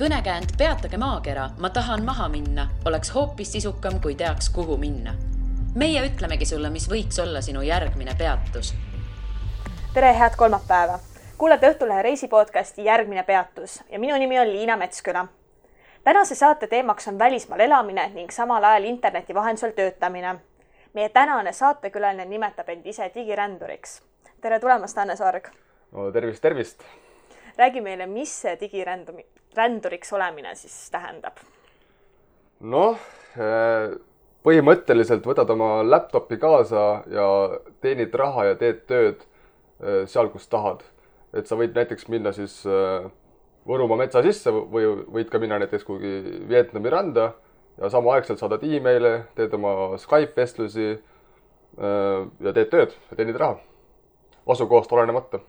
Kõnekäänd Peatage maakera, ma tahan maha minna, oleks hoopis sisukam, kui teaks, kuhu minna. Meie ütlemegi sulle, mis võiks olla sinu järgmine peatus. Tere, head kolmapäeva! Kuulete Õhtulehe reisipodcasti Järgmine peatus ja minu nimi on Liina Metsküla. Tänase saate teemaks on välismaal elamine ning samal ajal interneti vahendusel töötamine. Meie tänane saatekülaline nimetab end ise digiränduriks. Tere tulemast, Anne Sorg! No, tervist! Räägi meile, mis see digiränduriks olemine siis tähendab? Põhimõtteliselt võtad oma laptopi kaasa ja teenid raha ja teed tööd seal, kus tahad. Et sa võid näiteks minna siis Võrumaa metsa sisse või võid ka minna näiteks kuhugi Vietnami randa ja samaaegselt saadad e-maile, teed oma Skype-vestlusi ja teed tööd ja teenid raha. Asukohast olenemata.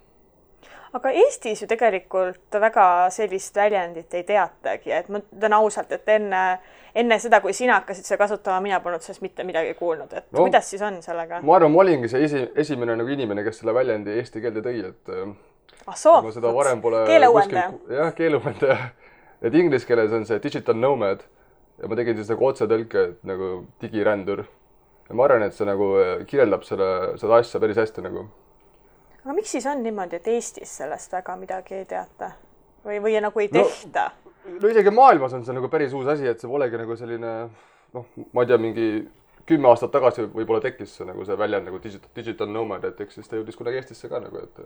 Aga Eestis ju tegelikult väga sellist väljendit ei teatagi, et ma ütlen ausalt, et enne seda, kui sina hakkasid seda kasutama, mina polnud sellest mitte midagi kuulnud, et kuidas siis on sellega? Ma arvan, ma olingi see esimene inimene, kes selle väljendi eesti keelde tõi, et ma seda varem pole keeleuuendaja. Jah, keeleuuendaja. Et inglise keeles on see digital nomad ja ma tegin siis nagu otsetõlke, et nagu digirändur. Ja ma arvan, et see nagu kirjeldab seda asja päris hästi nagu. Aga miks siis on niimoodi, et Eestis sellest väga midagi ei teata? Või nagu ei tehta? No isegi maailmas on see nagu päris uus asi, et see polegi nagu selline, ma ei tea, mingi 10 aastat tagasi võib-olla tekkis see, nagu see väljend nagu digital nomad, et eks siis ta jõudis kunagi Eestisse ka nagu, et...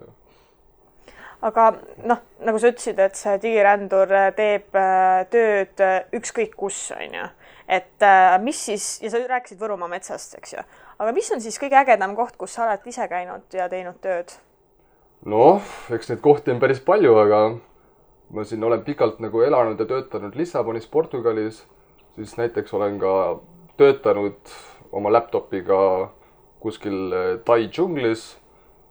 Aga nagu sa ütlesid, et see digirändur teeb tööd ükskõik kus, on ju. Et mis siis, ja sa rääkisid Võrumaa metsast, eks ju, aga mis on siis kõige ägedam koht, kus sa oled ise käinud ja teinud tööd? Eks neid kohti on päris palju, aga ma siin olen pikalt nagu elanud ja töötanud Lissabonis, Portugalis, siis näiteks olen ka töötanud oma laptopiga kuskil Tai džunglis,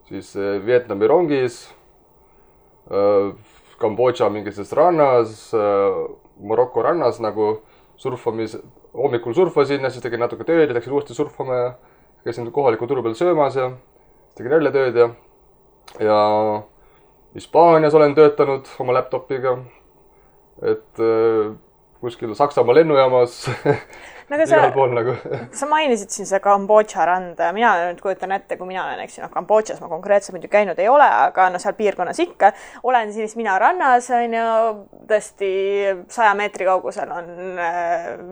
siis Vietnami rongis, Kambodža mingises rannas, Maroko rannas nagu hommikul surfasin ja siis tegin natuke tööd ja läksin uuesti surfama ja käisin kohaliku turu peal söömas ja tegin jälle tööd ja Hispaanias olen töötanud oma laptopiga, et kuskil Saksamaa lennujaamas igal pool nagu. Sa mainisid siin see Kambodža randa ja mina nüüd kujutan ette, kui mina olen, eks ju, Kambodžas ma konkreetselt muidu käinud ei ole, aga seal piirkonnas ikka olen siis mina rannas, on ju, tõesti 100 meetri kaugusel on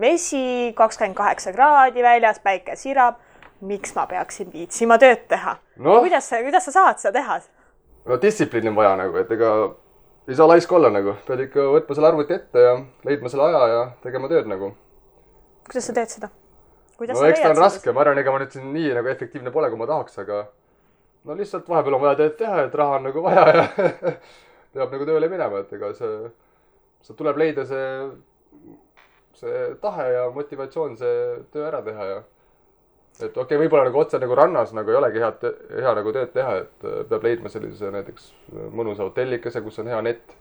vesi, 28 kraadi väljas, päike sirab. Miks ma peaksin viitsima tööd teha? Kuidas sa saad seda teha? Distsipliini on vaja nagu, et ega ei saa laisk olla nagu. Pead ikka võtma selle arvuti ette ja leidma selle aja ja tegema tööd nagu. Kuidas sa teed seda? Eks ta on raske. Ma arvan, ega ma nüüd siin nii nagu efektiivne pole, kui ma tahaks, aga lihtsalt vahepeal on vaja tööd teha, et raha on nagu vaja ja peab nagu tööle minema, et ega see tuleb leida see tahe ja motivatsioon see töö ära teha ja et võib-olla nagu otse nagu rannas nagu ei olegi hea nagu tööd teha, et peab leidma sellise näiteks mõnusa hotellikese, kus on hea net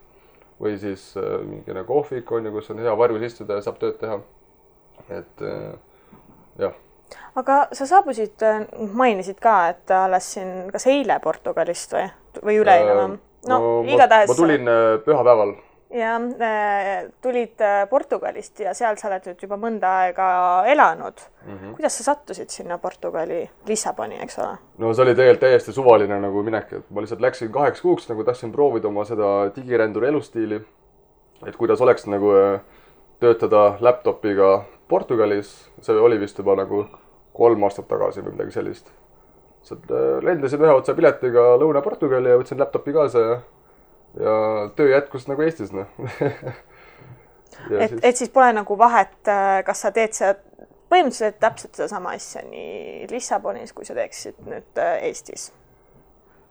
või siis mingi kohvik on ja kus on hea varjus istuda ja saab tööd teha. Et jah. Aga sa saabusid, mainisid ka, et alles siin kas eile Portugalist või üleeile? Ma tulin pühapäeval. Ja tulid Portugalist ja seal sa oled nüüd juba mõnda aega elanud. Kuidas sa sattusid sinna Portugali Lissaboni, eks ole? See oli tegelikult täiesti suvaline nagu minek, et ma lihtsalt läksin 8 kuuks, nagu tahtsin proovida oma seda digiränduri elustiili, et kuidas oleks nagu töötada laptopiga Portugalis. See oli vist juba nagu 3 aastat tagasi või midagi sellist. Lendasin ühe otsa piletiga Lõuna-Portugali ja võtsin laptopi kaasa ja töö jätkus nagu Eestis. Et siis pole nagu vahet, kas sa teed seda põhimõtteliselt täpselt seda sama asja nii Lissabonis, kui sa teeksid nüüd Eestis?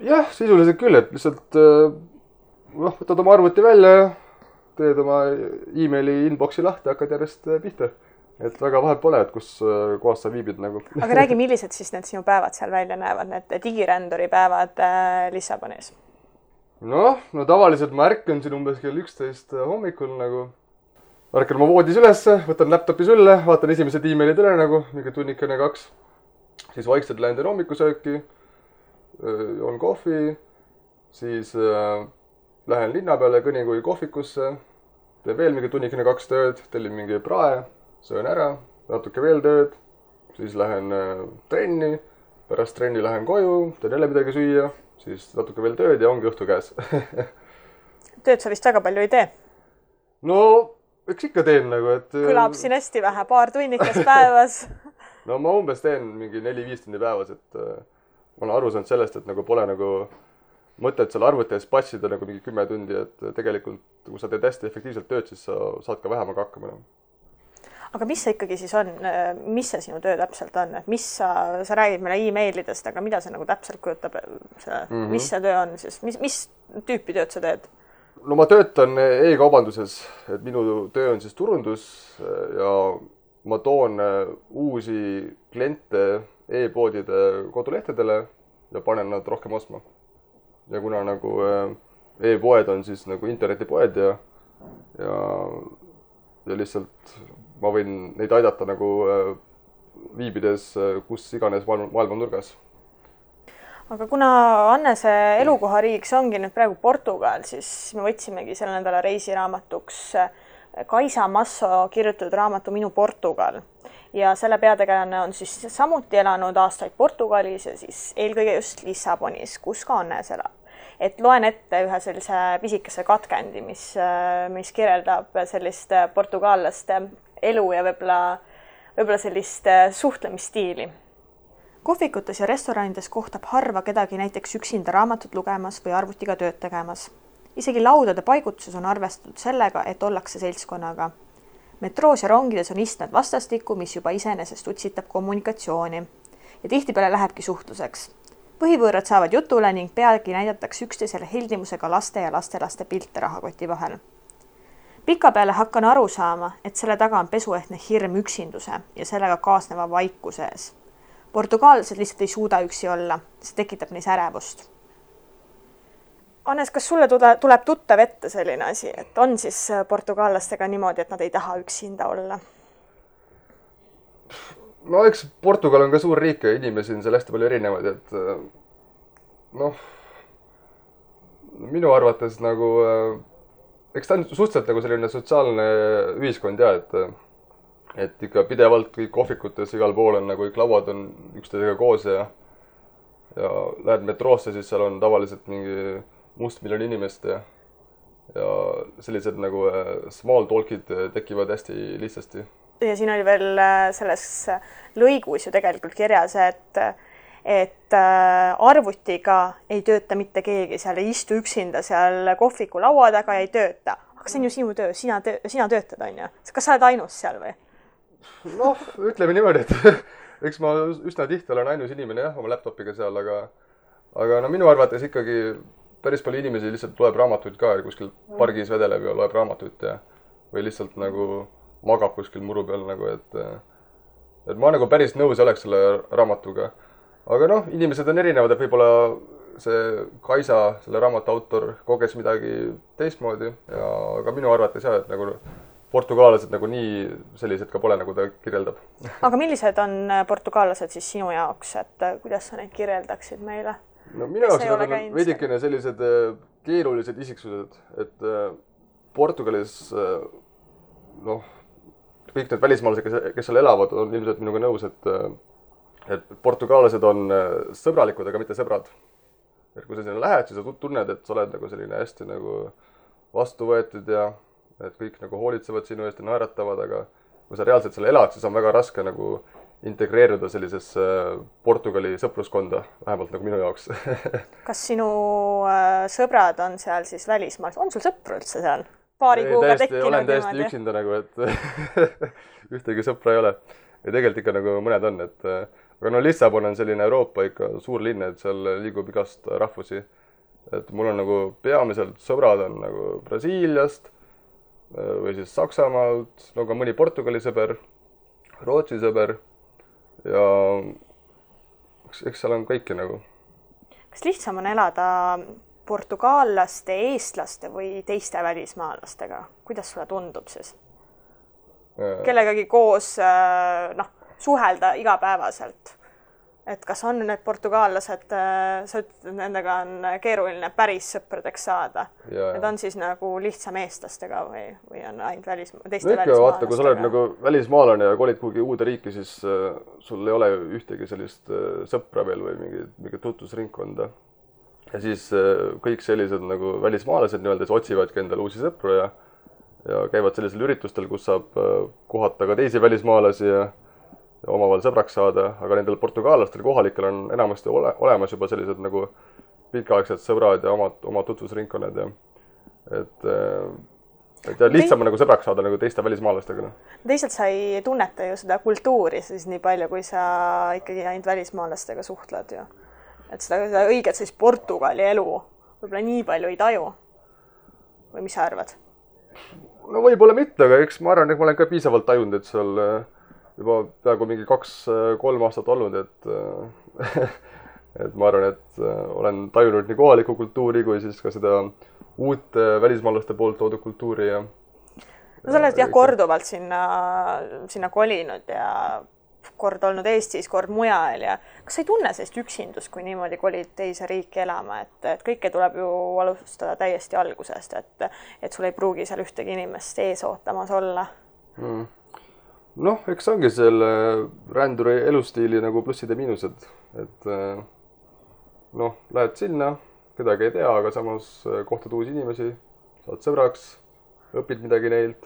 Jah, sisuliselt küll, et lihtsalt võtad oma arvuti välja ja teed oma e-maili inboxi lahti ja hakkad järjest pihta. Et väga vahet pole, et kus kohas sa viibid nagu. Aga räägi, millised siis need sinu päevad seal välja näevad, need digiränduri päevad Lissabonis? Tavaliselt ma ärkan siin umbes kell 11 hommikul nagu. Ärkan ma voodis üles, võtan laptopi sülle, vaatan esimesed e-mailid üle nagu, mingi tunnikene 2. Siis vaikselt lähen hommikusööki, joon kohvi, siis lähen linna peale kõnikugi kohvikusse, teen veel mingi tunnikene 2 tööd, tellin mingi prae, söön ära, natuke veel tööd, siis lähen trenni, pärast trenni lähen koju, teen jälle midagi süüa, siis natuke veel tööd ja ongi õhtu käes. Tööd sa vist väga palju ei tee? No, eks ikka teen nagu, et... Kõlab siin hästi vähe, paar tunnikest päevas. No ma umbes teen mingi 4-5 tundi päevas, et ma olen aru saanud sellest, et nagu pole nagu mõtet seal arvutis passida nagu mingi 10 tundi, et tegelikult kui sa teed hästi efektiivselt tööd, siis sa saad ka vähemaga hakkama. Aga mis see ikkagi siis on? Mis see sinu töö täpselt on? Et mis sa räägid meile e-mailidest, aga mida see nagu täpselt kujutab? Mis see töö on siis? Mis tüüpi tööd sa teed? No ma töötan e-kaubanduses, et minu töö on siis turundus ja ma toon uusi kliente e-poodide kodulehtedele ja panen nad rohkem ostma. Ja kuna nagu e-poed on siis nagu internetipoed ja lihtsalt ma võin neid aidata nagu viibides kus iganes maailma nurgas. Aga kuna Annese elukohariiks ongi nüüd praegu Portugal, siis me võtsimegi selle nädala reisiraamatuks Kaisa Masso kirjutatud raamatu Minu Portugal. Ja selle peategelane on siis samuti elanud aastaid Portugalis ja siis eelkõige just Lissabonis, kus ka Annes elab. Et loen ette ühe sellise pisikese katkendi, mis kirjeldab sellist portugallaste elu ja võib-olla sellist suhtlemisstiili. Kohvikutes ja restoranides kohtab harva kedagi näiteks üksinda raamatut lugemas või arvutiga tööd tegemas. Isegi laudade paigutuses on arvestatud sellega, et ollakse seltskonnaga. Metroos ja rongides on istmed vastastikku, mis juba iseenesest utsitab kommunikatsiooni. Ja tihtipeale lähebki suhtluseks. Põhivõõrad saavad jutule ning peagi näidatakse üksteisele heldimusega laste ja lastelaste pilte rahakoti vahel. Pikapeale hakkan aru saama, et selle taga on pesuehtne hirm üksinduse ja sellega kaasneva vaikuse ees. Portugaalsed lihtsalt ei suuda üksi olla, see tekitab neis ärevust. Annes, kas sulle tuleb tuttav ette selline asi, et on siis portugaallastega niimoodi, et nad ei taha üksinda olla? No eks Portugal on ka suur riik ja inimesi on seal hästi palju erinevaid, et minu arvates nagu, eks ta on suhteliselt nagu selline sotsiaalne ühiskond ja, et ikka pidevalt kõik kohvikutes igal pool on nagu kõik lauad on üksteisega koos ja lähed metroosse, siis seal on tavaliselt mingi mustmiljon inimest ja sellised nagu small talk'id tekivad hästi lihtsasti. Ja siin oli veel selles lõigus ju tegelikult kirjas, et arvutiga ei tööta mitte keegi, seal ei istu üksinda seal kohviku laua taga ja ei tööta. Aga see on ju sinu töö, sina töötad, on ju? Kas sa oled ainus seal või? Noh, ütleme niimoodi, et eks ma üsna tihti olen ainus inimene jah, oma laptopiga seal, aga no minu arvates ikkagi päris palju inimesi lihtsalt loeb raamatuid ka, kuskil pargis vedeleb ja loeb raamatuid või lihtsalt nagu magab kuskil muru peal nagu, et ma nagu päris nõus oleks selle raamatuga. Aga noh, inimesed on erinevad, et võib-olla see Kaisa, selle raamatu autor, koges midagi teistmoodi ja aga minu arvates jah, et nagu portugaallased nagu nii sellised ka pole, nagu ta kirjeldab. Aga millised on portugaallased siis sinu jaoks, et kuidas sa neid kirjeldaksid meile? No minu jaoks on veidikene sellised keerulised isiksused, et Portugalis noh, kõik need välismaalased, kes seal elavad, on ilmselt minuga nõus, et portugaallased on sõbralikud, aga mitte sõbrad. Et kui sa sinna lähed, siis sa tunned, et sa oled nagu selline hästi nagu vastu võetud ja et kõik nagu hoolitsevad sinu eest ja naeratavad, aga kui sa reaalselt seal elad, siis on väga raske nagu integreeruda sellisesse Portugali sõpruskonda, vähemalt nagu minu jaoks. Kas sinu sõbrad on seal siis välismaal? On sul sõpru üldse seal? Paari kuuga tekkinud? Olen täiesti üksinda nagu, et ühtegi sõpra ei ole. Ja tegelikult ikka nagu mõned on, et aga no Lissabon on selline Euroopa ikka suur linn, et seal liigub igast rahvusi. Et mul on nagu peamiselt sõbrad on nagu Brasiiliast või siis Saksamaalt, no ka mõni Portugali sõber, Rootsi sõber ja eks seal on kõiki nagu. Kas lihtsam on elada portugallaste, eestlaste või teiste välismaalastega? Kuidas sulle tundub siis? Kellegagi koos suhelda igapäevaselt? et kas on need portugaallased, sa ütled, et nendega on keeruline päris sõpradeks saada. Need on siis nagu lihtsam eestlastega või on ainult teiste välismaalastega? Vaata, kui sa oled nagu välismaalane ja kolid kuhugi uude riiki, siis sul ei ole ühtegi sellist sõpra veel või mingit tutvusringkonda. Ja siis kõik sellised nagu välismaalased nii-öelda otsivadki endale uusi sõpru ja käivad sellisel üritustel, kus saab kohata ka teisi välismaalasi ja omavahel sõbraks saada, aga nendel portugaallastel kohalikel on enamasti olemas juba sellised nagu pikaaegsed sõbrad ja omad tutvusringkonnad ja et lihtsam on nagu sõbraks saada nagu teiste välismaalastega. Teisalt sa ei tunneta ju seda kultuuri siis nii palju, kui sa ikkagi ainult välismaalastega suhtled ju. Et seda õiget siis Portugali elu võib-olla nii palju ei taju. Või mis sa arvad? No võib-olla mitte, aga eks ma arvan, et ma olen ka piisavalt tajunud, et seal juba peaaegu mingi 2-3 aastat olnud, et ma arvan, et olen tajunud nii kohalikku kultuuri kui siis ka seda uut välismaalaste poolt toodud kultuuri ja no sa oled korduvalt sinna kolinud ja kord olnud Eestis, kord mujal ja kas sa ei tunne sellist üksindust, kui niimoodi kolid teise riiki elama, et kõike tuleb ju alustada täiesti algusest, et sul ei pruugi seal ühtegi inimest ees ootamas olla? Noh, eks ongi selle ränduri elustiili nagu plussid ja miinused, et noh, lähed sinna, kedagi ei tea, aga samas kohtad uusi inimesi, saad sõbraks, õpid midagi neilt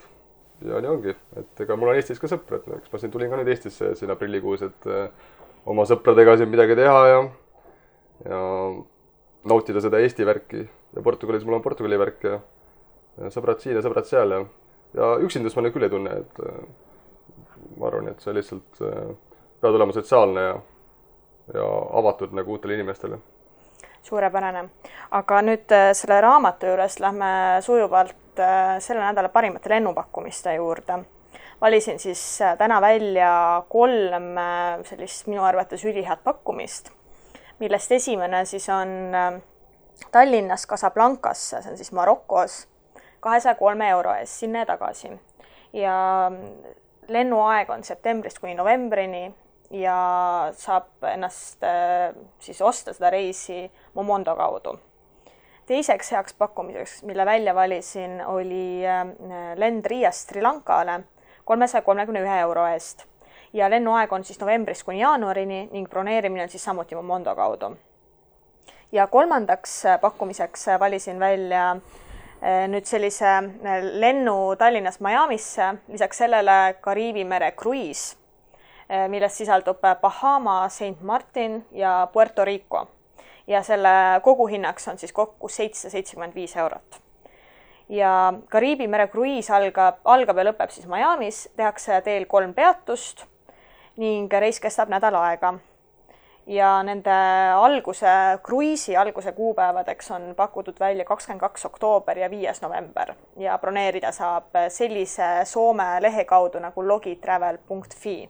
ja nii ongi, et ega mul on Eestis ka sõpr, et eks ma siin tulin ka nüüd Eestisse siin aprillikuus, et oma sõpradega siin midagi teha ja nautida seda Eesti värki ja Portugalis mul on Portugali värk ja sõbrad siin ja sõbrad seal ja üksindust ma nüüd küll ei tunne, et ma arvan, et see lihtsalt peab olema sotsiaalne ja avatud nagu uutele inimestele. Suurepärane. Aga nüüd selle raamatu juures lähme sujuvalt selle nädala parimate lennupakkumiste juurde. Valisin siis täna välja 3 sellist minu arvates ülihead pakkumist, millest esimene siis on Tallinnas Casablancasse, see on siis Marokos, 203 € eest sinna ja tagasi. Ja lennuaeg on septembrist kuni novembrini ja saab ennast siis osta seda reisi Momondo kaudu. Teiseks heaks pakkumiseks, mille välja valisin, oli lend Riiast Sri Lankale 331 € eest ja lennuaeg on siis novembrist kuni jaanuarini ning broneerimine on siis samuti Momondo kaudu. Ja kolmandaks pakkumiseks valisin välja nüüd sellise lennu Tallinnas Miamisse, lisaks sellele Kariibi mere kruiis, millest sisaldub Bahama, Saint Martin ja Puerto Rico. Ja selle koguhinnaks on siis kokku 775 €. Ja Kariibi mere kruiis algab ja lõpeb siis Miamis, tehakse teel 3 peatust ning reis kestab nädal aega. Ja nende kruiisi alguse kuupäevadeks on pakutud välja 22. oktoober ja 5. november ja broneerida saab sellise Soome lehe kaudu nagu logitravel.fi.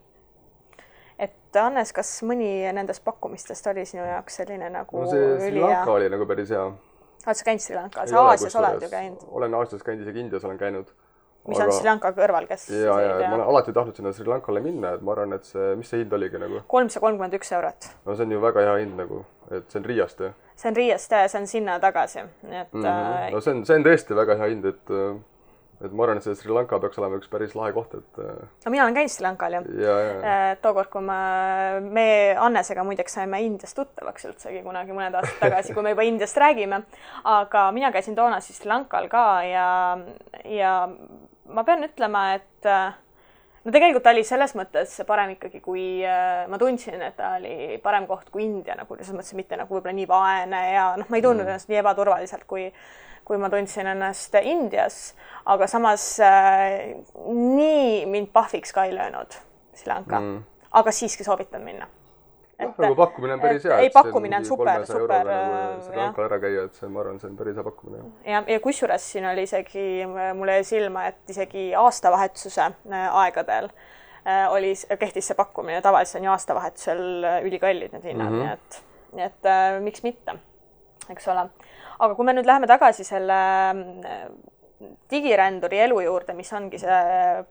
Et Hannes, kas mõni nendest pakkumistest oli sinu jaoks selline nagu Sri Lanka oli nagu päris hea. Oled sa käinud Sri Lankal? Sa Aasias oled ju käinud? Olen Aasias käinud, isegi Indias olen käinud. Mis on Sri Lanka kõrval, kes? Ja ma olen alati tahtnud sinna Sri Lankale minna, et ma arvan, et mis see hind oligi nagu? 331 €. No see on ju väga hea hind nagu, et see on Riiast ja? See on Riiast ja see on sinna tagasi. No see on tõesti väga hea hind, et ma arvan, et see Sri Lanka peaks olema üks päris lahe koht, et no mina olen käinud Sri Lankal ju. Tookord, kui me Annesega muideks saime Indiast tuttavaks üldsegi kunagi mõned aastad tagasi, kui me juba Indiast räägime, aga mina käisin toona siis Sri Lankal ka ja ma pean ütlema, et no tegelikult ta oli selles mõttes parem ikkagi, kui ma tundsin, et ta oli parem koht kui India, nagu selles mõttes mitte nagu võib-olla nii vaene ja noh, ma ei tundnud ennast nii ebaturvaliselt, kui ma tundsin ennast Indias, aga samas nii mind pahviks ka ei löönud Sri Lanka, aga siiski soovitan minna. Nagu pakkumine on päris hea. Ei, pakkumine on super. Sri Lankal ära käia, et ma arvan, see on päris hea pakkumine. Ja kusjuures siin oli isegi, mulle jäi silma, et isegi aastavahetuse aegadel kehtis see pakkumine. Tavaliselt on ju aastavahetusel ülikallid need hinnad, nii et miks mitte, eks ole. Aga kui me nüüd läheme tagasi selle digiränduri elu juurde, mis ongi see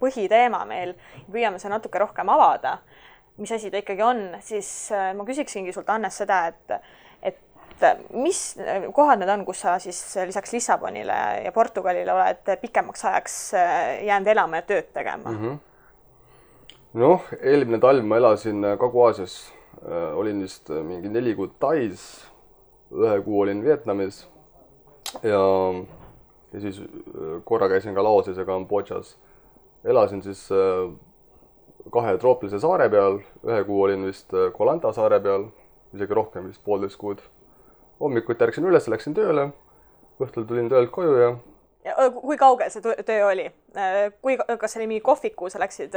põhiteema meil, püüame see natuke rohkem avada, mis asi ta ikkagi on, siis ma küsiksingi sult, Hannes, seda, et mis kohad need on, kus sa siis lisaks Lissabonile ja Portugalile oled pikemaks ajaks jäänud elama ja tööd tegema? Noh, eelmine talv ma elasin Kagu-Aasias. Olin vist mingi 4 kuud Tais, 1 kuu olin Vietnamis ja siis korra käisin ka Laoses ja Kambodžas. Elasin siis 2 troopilise saare peal, 1 kuu olin vist Koh Lanta saare peal, isegi rohkem, vist 1,5 kuud. Hommikuti ärksin üles, läksin tööle, õhtul tulin töölt koju ja... Kui kaugel see töö oli? Kas see oli mingi kohviku, sa läksid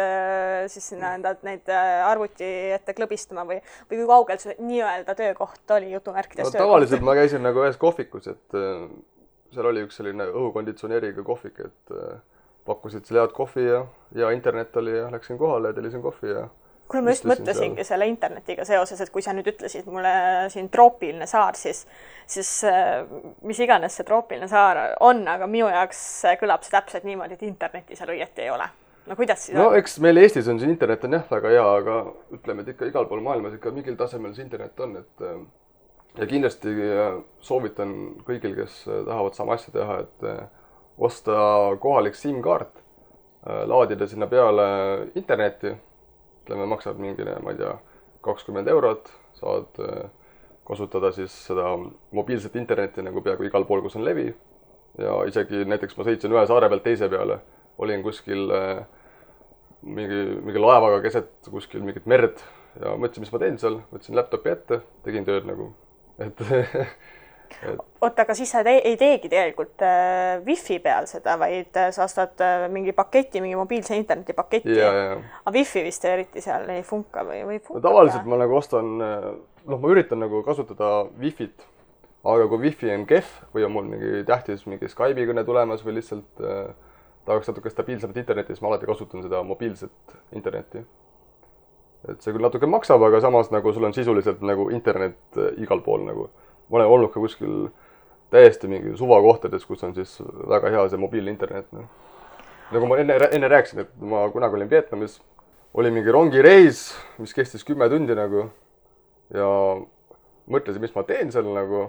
siis sinna neid arvuti ette klõbistama või kui kaugel see nii-öelda töökoht oli jutumärkides töökoht? Tavaliselt ma käisin nagu ühes kohvikus, et seal oli üks selline õhukonditsioneeriga kohvik, et pakkusid seal head kohvi ja internet oli ja läksin kohale ja tellisin kohvi ja... Kui ma just mõtlesingi selle internetiga seoses, et kui sa nüüd ütlesid mulle siin troopiline saar, siis mis iganes see troopiline saar on, aga minu jaoks kõlab see täpselt niimoodi, et interneti seal õieti ei ole. No kuidas siis on? No eks meil Eestis on see internet on jah väga hea, aga ütleme, et ikka igal pool maailmas ikka mingil tasemel see internet on, et ja kindlasti soovitan kõigil, kes tahavad sama asja teha, et osta kohalik SIM-kaart, laadida sinna peale interneti. Maksab mingine, ma ei tea, 20 €, saad kasutada siis seda mobiilset internetti nagu peaaegu igal pool, kus on levi. Ja isegi näiteks ma sõitsin ühe saare pealt teise peale, olin kuskil mingi laevaga keset kuskil mingit merd ja mõtlesin, mis ma teen seal, võtsin laptopi ette, tegin tööd nagu, et Oota, aga siis sa ei teegi tegelikult Wi-Fi peal seda, vaid sa ostad mingi paketi, mingi mobiilse interneti paketi. Aga Wi-Fi vist eriti seal ei funka või funka? No, tavaliselt ma nagu ostan, ma üritan nagu kasutada Wi-Fit, aga kui Wi-Fi on kehv või on mul mingi tähtis mingi Skype'i kõne tulemas või lihtsalt tahaks natuke stabiilsemat internetti, siis ma alati kasutan seda mobiilset internetti. Et see küll natuke maksab, aga samas nagu sul on sisuliselt nagu internet igal pool nagu. Ma olen olnud ka kuskil täiesti mingi suvakohtades, kus on siis väga hea see mobiilne internet. Nagu ma enne rääkisin, et ma kunagi olin Vietnamis, oli mingi rongireis, mis kestis 10 tundi nagu ja mõtlesin, mis ma teen seal nagu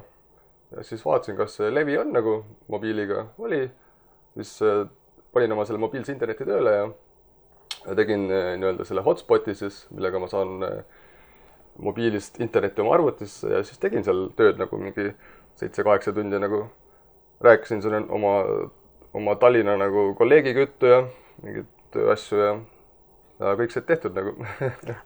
ja siis vaatasin, kas see levi on nagu mobiiliga oli, siis panin oma selle mobiilse interneti tööle ja tegin nii-öelda selle hotspoti siis, millega ma saan mobiilist internetti oma arvutisse ja siis tegin seal tööd nagu mingi 7-8 tundi nagu rääkisin selle oma Tallinna nagu kolleegiga juttu ja mingid tööasju ja kõik see tehtud nagu.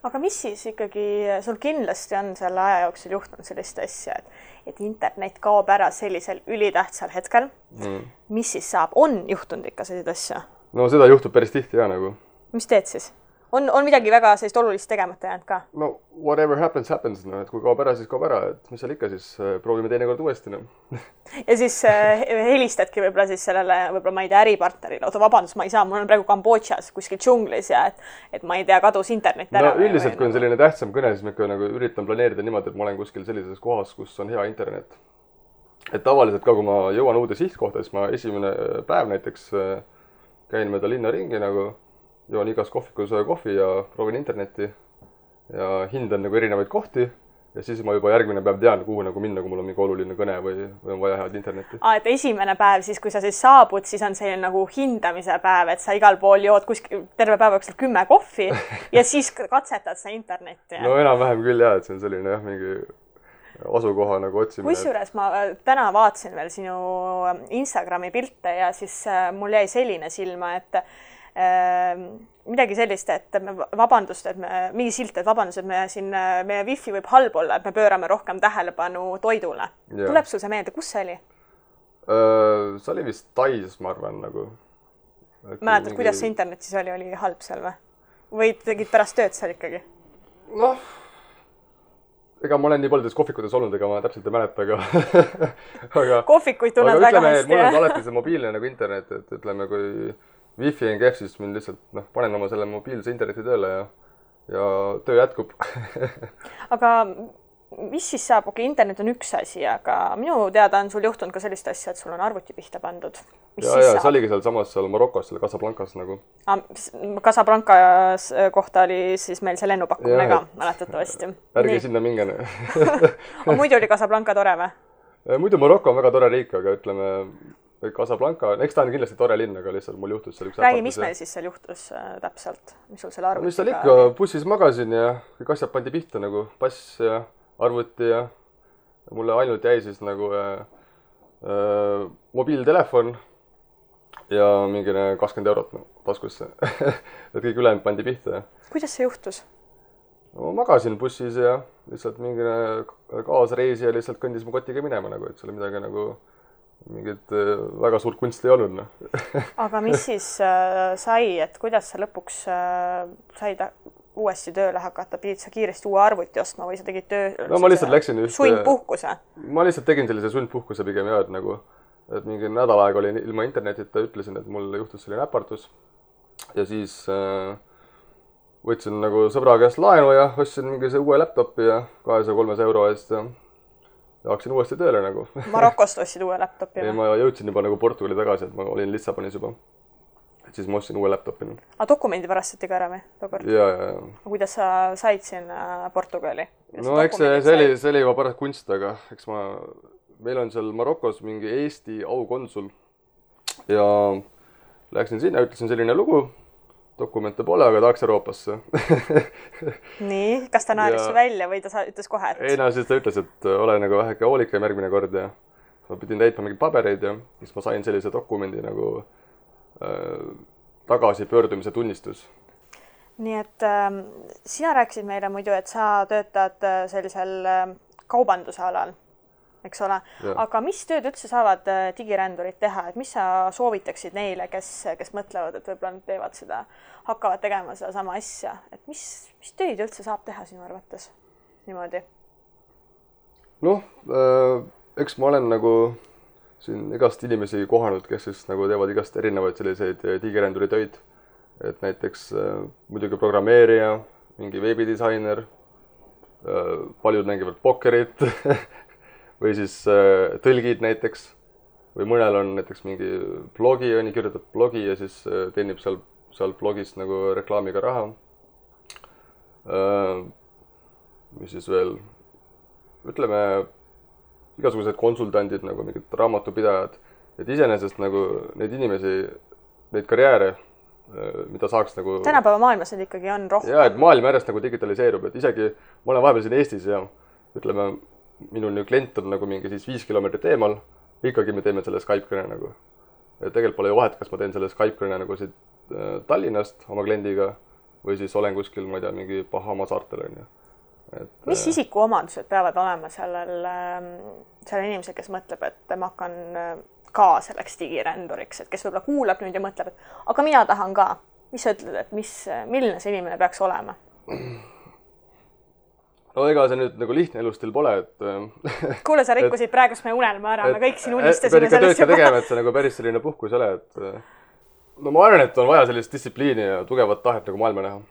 Aga mis siis ikkagi, sul kindlasti on selle aja jooksul juhtunud sellist asja, et internet kaob ära sellisel ülitähtsal hetkel. Mis siis saab? On juhtunud ikka sellised asja? No seda juhtub päris tihti ja nagu. Mis teed siis? On midagi väga sellist olulist tegemata jäänud ka? No whatever happens, no, et kui kaob ära, siis kaob ära, et mis seal ikka, siis proovime teinekord uuesti. No. Ja siis helistadki võib-olla siis sellele, võib-olla ma ei tea, äripartnerile, oota vabandust, ma ei saa, mul on praegu Kambodžas kuskil džunglis ja et ma ei tea, kadus internet ära. No üldiselt, kui on selline tähtsam kõne, siis ma ikka nagu üritan planeerida niimoodi, et ma olen kuskil sellises kohas, kus on hea internet. Et tavaliselt ka, kui ma jõuan uude sihtkohta, siis ma esimene päev näiteks käin mööda linna ringi nagu joon igas kohvikus kohvi ja proovin internetti ja hindan nagu erinevaid kohti ja siis ma juba järgmine päev tean, kuhu nagu minna, kui mul on mingi oluline kõne või on vaja head internetti. Et esimene päev, siis kui sa siis saabud, siis on selline nagu hindamise päev, et sa igal pool jood kuskil terve päeva jooksul 10 kohvi ja siis katsetad sa internetti. No enam-vähem küll jah, et see on selline jah, mingi asukoha nagu otsimine. Kusjuures ma täna vaatasin veel sinu Instagrami pilte ja siis mul jäi selline silma, et midagi sellist, et vabandust, et mingi silt, et vabandust, et meie Wi-Fi võib halb olla, et me pöörame rohkem tähelepanu toidule. Yeah. Tuleb sul see meelde, kus see oli? See oli vist Tais, ma arvan, nagu. Mäletad, kuidas see internet siis oli halb seal või? Või tegid pärast tööd seal ikkagi? Noh, ega ma olen nii paljudes kohvikutes olnud, ega ma täpselt ei mäleta, aga kohvikuid tunned väga hästi. Mul on alati see mobiilne nagu internet, et ütleme, kui Wi-Fi on kehv, siis mind lihtsalt panen oma selle mobiilse interneti tööle ja töö jätkub. Aga mis siis saab, internet on üks asi, aga minu teada on sul juhtunud ka sellist asja, et sul on arvuti pihta pandud. Ja see oligi seal Marokos, seal Casablancas nagu. Casablancas kohta oli siis meil see lennupakkumine ka, mäletatavasti. Ärge sinna mingene. Muidu oli Casablanca tore või? Muidu Maroko on väga tore riik, aga ütleme, Casablanca, eks ta on kindlasti tore linn, aga lihtsalt mul juhtus seal üks Räägi, mis meil siis seal juhtus täpselt? Mis sul seal arvuti? Mis seal ikka, bussis magasin ja kõik asjad pandi pihta nagu pass ja arvuti ja mulle ainult jäi siis nagu mobiiltelefon ja mingine 20 eurot taskusse. Et kõik ülejäänud pandi pihta. Kuidas see juhtus? No, magasin bussis ja lihtsalt mingine kaasreisija lihtsalt kõndis mu kotiga minema nagu, et seal midagi nagu mingit väga suurt kunsti ei olnud. Aga mis siis sai, et kuidas sa lõpuks said uuesti tööle hakata, pidid sa kiiresti uue arvuti ostma või sa tegid töö no, ma lihtsalt läksin sundpuhkuse? Ma lihtsalt tegin sellise sundpuhkuse pigem ja, et mingi nädal aega oli ilma internetita, ütlesin, et mul juhtus selline äpartus ja siis võtsin nagu sõbra käest laenu ja ostsin mingi see uue laptopi ja 200-300 euro eest ja hakkasin uuesti tööle nagu. Marokost ostsid uue laptopi? Ei, ma jõudsin juba nagu Portugali tagasi, et ma olin Lissabonis juba. Et siis ma ostsin uue laptopi. Aga dokumendi varastati ka ära või? Ja. Kuidas sa said siin Portugali? No eks see oli juba pärast kunst, aga eks meil on seal Marokos mingi Eesti aukonsul ja läksin sinna, ütlesin selline lugu, dokumente pole, aga tahaks Euroopasse. Nii, kas ta naeris välja või ta ütles kohe, et... Ei, no siis ta ütles, et ole nagu väheke hoolikam järgmine kord ja ma pidin täitma mingeid pabereid ja siis ma sain sellise dokumendi nagu tagasi pöördumise tunnistus. Nii et sina rääkisid meile muidu, et sa töötad sellisel kaubanduse alal, eks ole. Ja. Aga mis tööd üldse saavad digirändurid teha? Et mis sa soovitaksid neile, kes mõtlevad, et võib-olla nad teevad seda, hakkavad tegema seda sama asja? Et mis tööd üldse saab teha sinu arvates niimoodi? Noh, eks ma olen nagu siin igast inimesi kohanud, kes siis nagu teevad igast erinevaid selliseid digiränduri töid. Et näiteks muidugi programmeerija, mingi veebidisainer, paljud mängivad pokkerit või siis tõlgid näiteks. Või mõnel on näiteks mingi blogi, kirjutab blogi ja siis teenib seal blogist nagu reklaamiga raha. Mis siis veel, ütleme, igasugused konsultandid, nagu mingid raamatupidajad, et iseenesest nagu neid inimesi, neid karjääre, mida saaks nagu... Tänapäeva maailmas need ikkagi on rohkem. Ja, et maailm järjest nagu digitaliseerub, et isegi ma olen vahepeal siin Eestis ja ütleme, minul klient on nagu mingi siis 5 kilomeetrit eemal, ikkagi me teeme selle Skype-kõne nagu. Et tegelikult pole ju vahet, kas ma teen selle Skype-kõne nagu siit Tallinnast oma kliendiga või siis olen kuskil, ma ei tea, mingi Bahama saartel on ju. Mis isikuomandused peavad olema sellel inimesel, kes mõtleb, et ma hakkan ka selleks digiränduriks, et kes võib-olla kuulab nüüd ja mõtleb, et aga mina tahan ka. Mis sa ütled, et milline see inimene peaks olema? No ega see nüüd nagu lihtne elustil pole, et... Kuule, sa rikkusid praegust meie unelma ära, me kõik siin unistasime sellest juba. Tegema, et see nagu päris selline puhkus ole, et... No ma arvan, et on vaja sellist distsipliini ja tugevat tahet nagu maailma näha.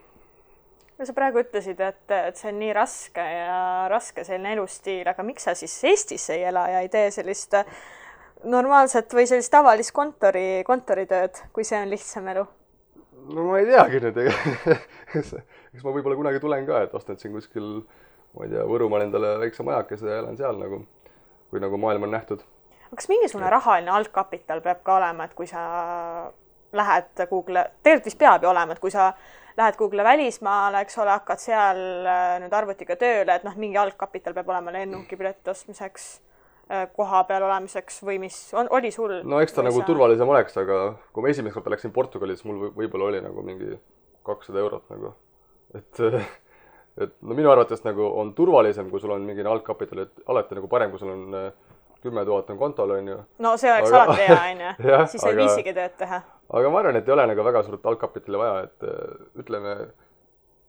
Ja sa praegu ütlesid, et see on nii raske ja raske selline elustiil, aga miks sa siis Eestis ei ela ja ei tee sellist normaalset või sellist tavalist kontoritööd, kui see on lihtsam elu? No ma ei teagi nüüd, eks ma võib-olla kunagi tulen ka, et ostan siin kuskil, ma ei tea, Võrumaal endale väikse majakese ja elan seal nagu, kui nagu maailm on nähtud. Kas mingisugune rahaline algkapital peab ka olema, et kui sa lähed Google, tegelikult vist peab ju olema, et kui sa lähed Google välismaale, eks ole, hakkad seal nüüd arvutiga tööle, et mingi algkapital peab olema lennukipileti ostmiseks, koha peal olemiseks või mis oli sul? No eks ta nagu turvalisem oleks, aga kui ma esimest korda läksin Portugalis, mul võib-olla oli nagu mingi 200 eurot nagu. Et no minu arvates nagu on turvalisem, kui sul on mingi algkapital, et alati nagu parem, kui sul on 10 000 on kontol, on ju. No see oleks alati hea, on ju. Siis ei viisigi tööd teha. Aga ma arvan, et ei ole nagu väga suurt algkapitali vaja, et ütleme,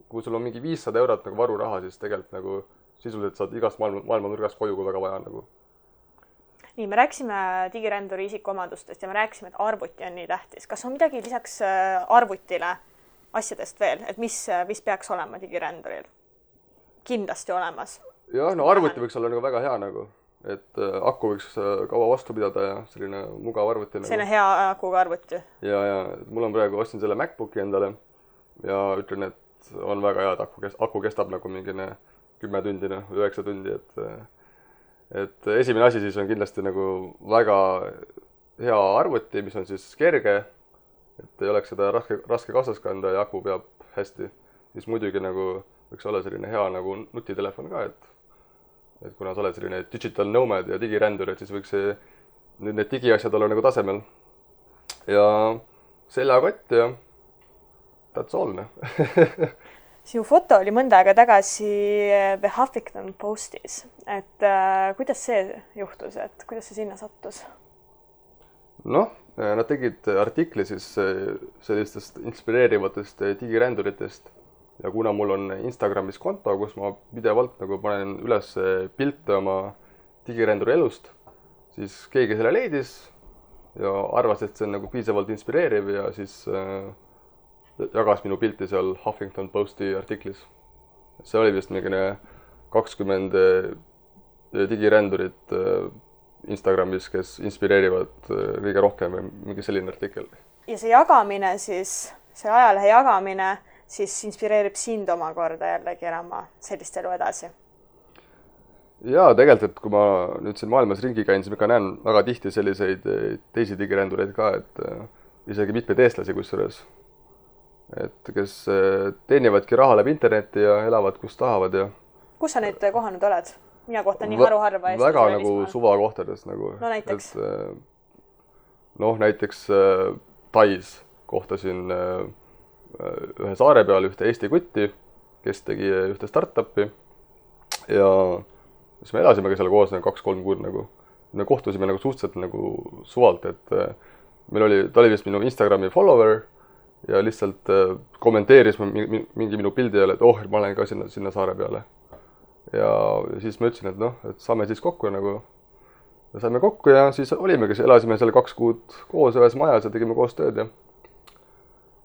kui sul on mingi 500 eurot nagu varuraha, siis tegelikult nagu sisuliselt saad igast maailma nurgast koju, kui väga vaja nagu. Nii, me rääksime digiränduri isikuomandustest ja me rääksime, et arvuti on nii tähtis. Kas on midagi lisaks arvutile asjadest veel, et mis peaks olema digiränduril? Kindlasti olemas. jah, no arvuti võiks olla nagu väga hea nagu, et aku võiks kaua vastu pidada ja selline mugav arvuti nagu. Selline hea akuga arvuti. Ja mul on praegu ostsin selle MacBooki endale ja ütlen, et on väga hea, et aku kestab nagu mingine 10 tundi, 9 tundi, et esimene asi siis on kindlasti nagu väga hea arvuti, mis on siis kerge, et ei oleks seda raske kaasas kanda ja aku peab hästi. Siis muidugi nagu võiks olla selline hea nagu nutitelefon ka, et kuna sa oled selline digital nomad ja digirändur, et siis võiks nüüd need digiasjad olla nagu tasemel. Ja seljakott ja that's all. Sinu foto oli mõnda aega tagasi The Huffington Postis, et kuidas see juhtus, et kuidas see sinna sattus? Noh, nad tegid artikli siis sellistest inspireerivatest digiränduritest ja kuna mul on Instagramis konto, kus ma pidevalt nagu panen üles pilte oma digiränduri elust, siis keegi selle leidis ja arvas, et see on nagu piisavalt inspireeriv ja siis jagas minu pilti seal Huffington Posti artiklis. See oli vist mingine 20 digirändurit Instagramis, kes inspireerivad kõige rohkem või mingi selline artikkel. Ja see jagamine siis, see ajalehe jagamine siis inspireerib sind omakorda jällegi elama sellist elu edasi? Jaa, tegelikult, et kui ma nüüd siin maailmas ringi käin, siis ma ka näen väga tihti selliseid teisi digirändureid ka, et isegi mitmeid eestlasi kusjuures, et kes teenivadki raha läbi interneti ja elavad, kus tahavad. Ja kus sa nüüd kohanud oled? Mina kohtan nii haruharva Eestis. Väga nagu suvakohtades. Nagu, no näiteks? Näiteks Tais kohtasin ühe saare peal ühte Eesti kutti, kes tegi ühte startupi ja siis me elasimegi seal koos 2-3 kuud nagu. Me kohtusime nagu suhteliselt nagu suvalt, et ta oli vist minu Instagrami follower ja lihtsalt kommenteeris mingi minu pildi jälle, et ma olen ka sinna saare peale. Ja siis ma ütlesin, et saame siis kokku nagu. Ja saime kokku ja siis olimegi, elasime seal 2 kuud koos ühes majas ja tegime koos tööd ja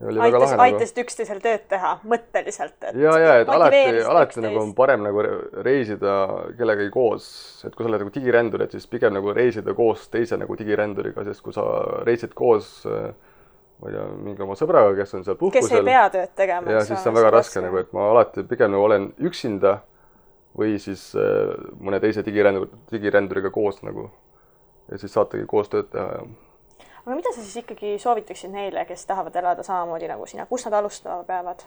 oli väga lahe. Aitasid üksteisel tööd teha, mõtteliselt. Ja, et alati nagu on parem nagu reisida kellegagi koos, et kui sa oled nagu digirändur, et siis pigem nagu reisida koos teise nagu digiränduriga, sest kui sa reisid koos ma ei tea, mingi oma sõbraga, kes on seal puhkusel. Kes ei pea tööd tegema. Ja siis on väga raske, nagu, et ma alati pigem nagu olen üksinda või siis mõne teise digiränduriga koos nagu. Ja siis saategi koos tööd teha. Ja. Aga mida sa siis ikkagi soovitaksid neile, kes tahavad elada samamoodi nagu sina? Kus nad alustama peavad?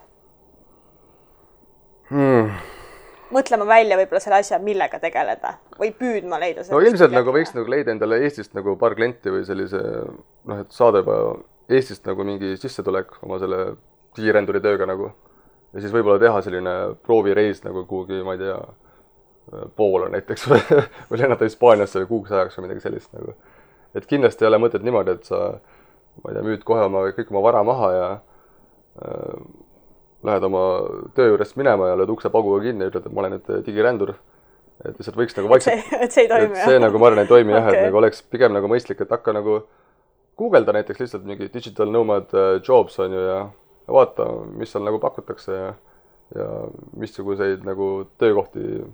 Mõtlema välja võib-olla selle asja, millega tegeleda või püüdma leida. No ilmselt nagu võiks nagu leida endale Eestist nagu paar klienti või sellise, et saada juba Eestist nagu mingi sissetulek oma selle digiränduri tööga nagu. Ja siis võib-olla teha selline proovireis nagu kuhugi, ma ei tea, Poola näiteks või lennata Hispaaniasse või kuuks ajaks või midagi sellist nagu. Et kindlasti ei ole mõtet niimoodi, et sa, ma ei tea, müüd kohe kõik oma vara maha ja lähed oma töö juurest minema ja lööd ukse pauguga kinni ja ütled, et ma olen nüüd digirändur. Et lihtsalt võiks nagu vaikselt... Et see ei toimi, jah? See nagu ma arvan, ei toimi, jah, et nagu oleks pigem nagu mõistlik, et hakka nagu googelda näiteks lihtsalt mingi digital nomad jobs on ju ja vaata, mis seal nagu pakutakse ja missuguseid nagu töökohti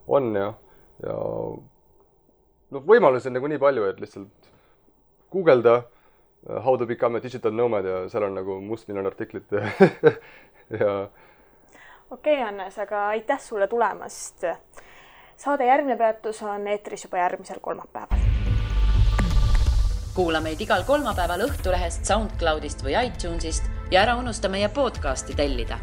on ja võimalusi on nagu nii palju, et lihtsalt googelda how to become a digital nomad ja seal on nagu mustmiljon artiklit ja... Okei, Hannes, aga aitäh sulle tulemast. Saade Järgmine peatus on eetris juba järgmisel kolmapäeval. Kuula meid igal kolmapäeval Õhtulehest, SoundCloudist või iTunesist ja ära unusta meie podcasti tellida.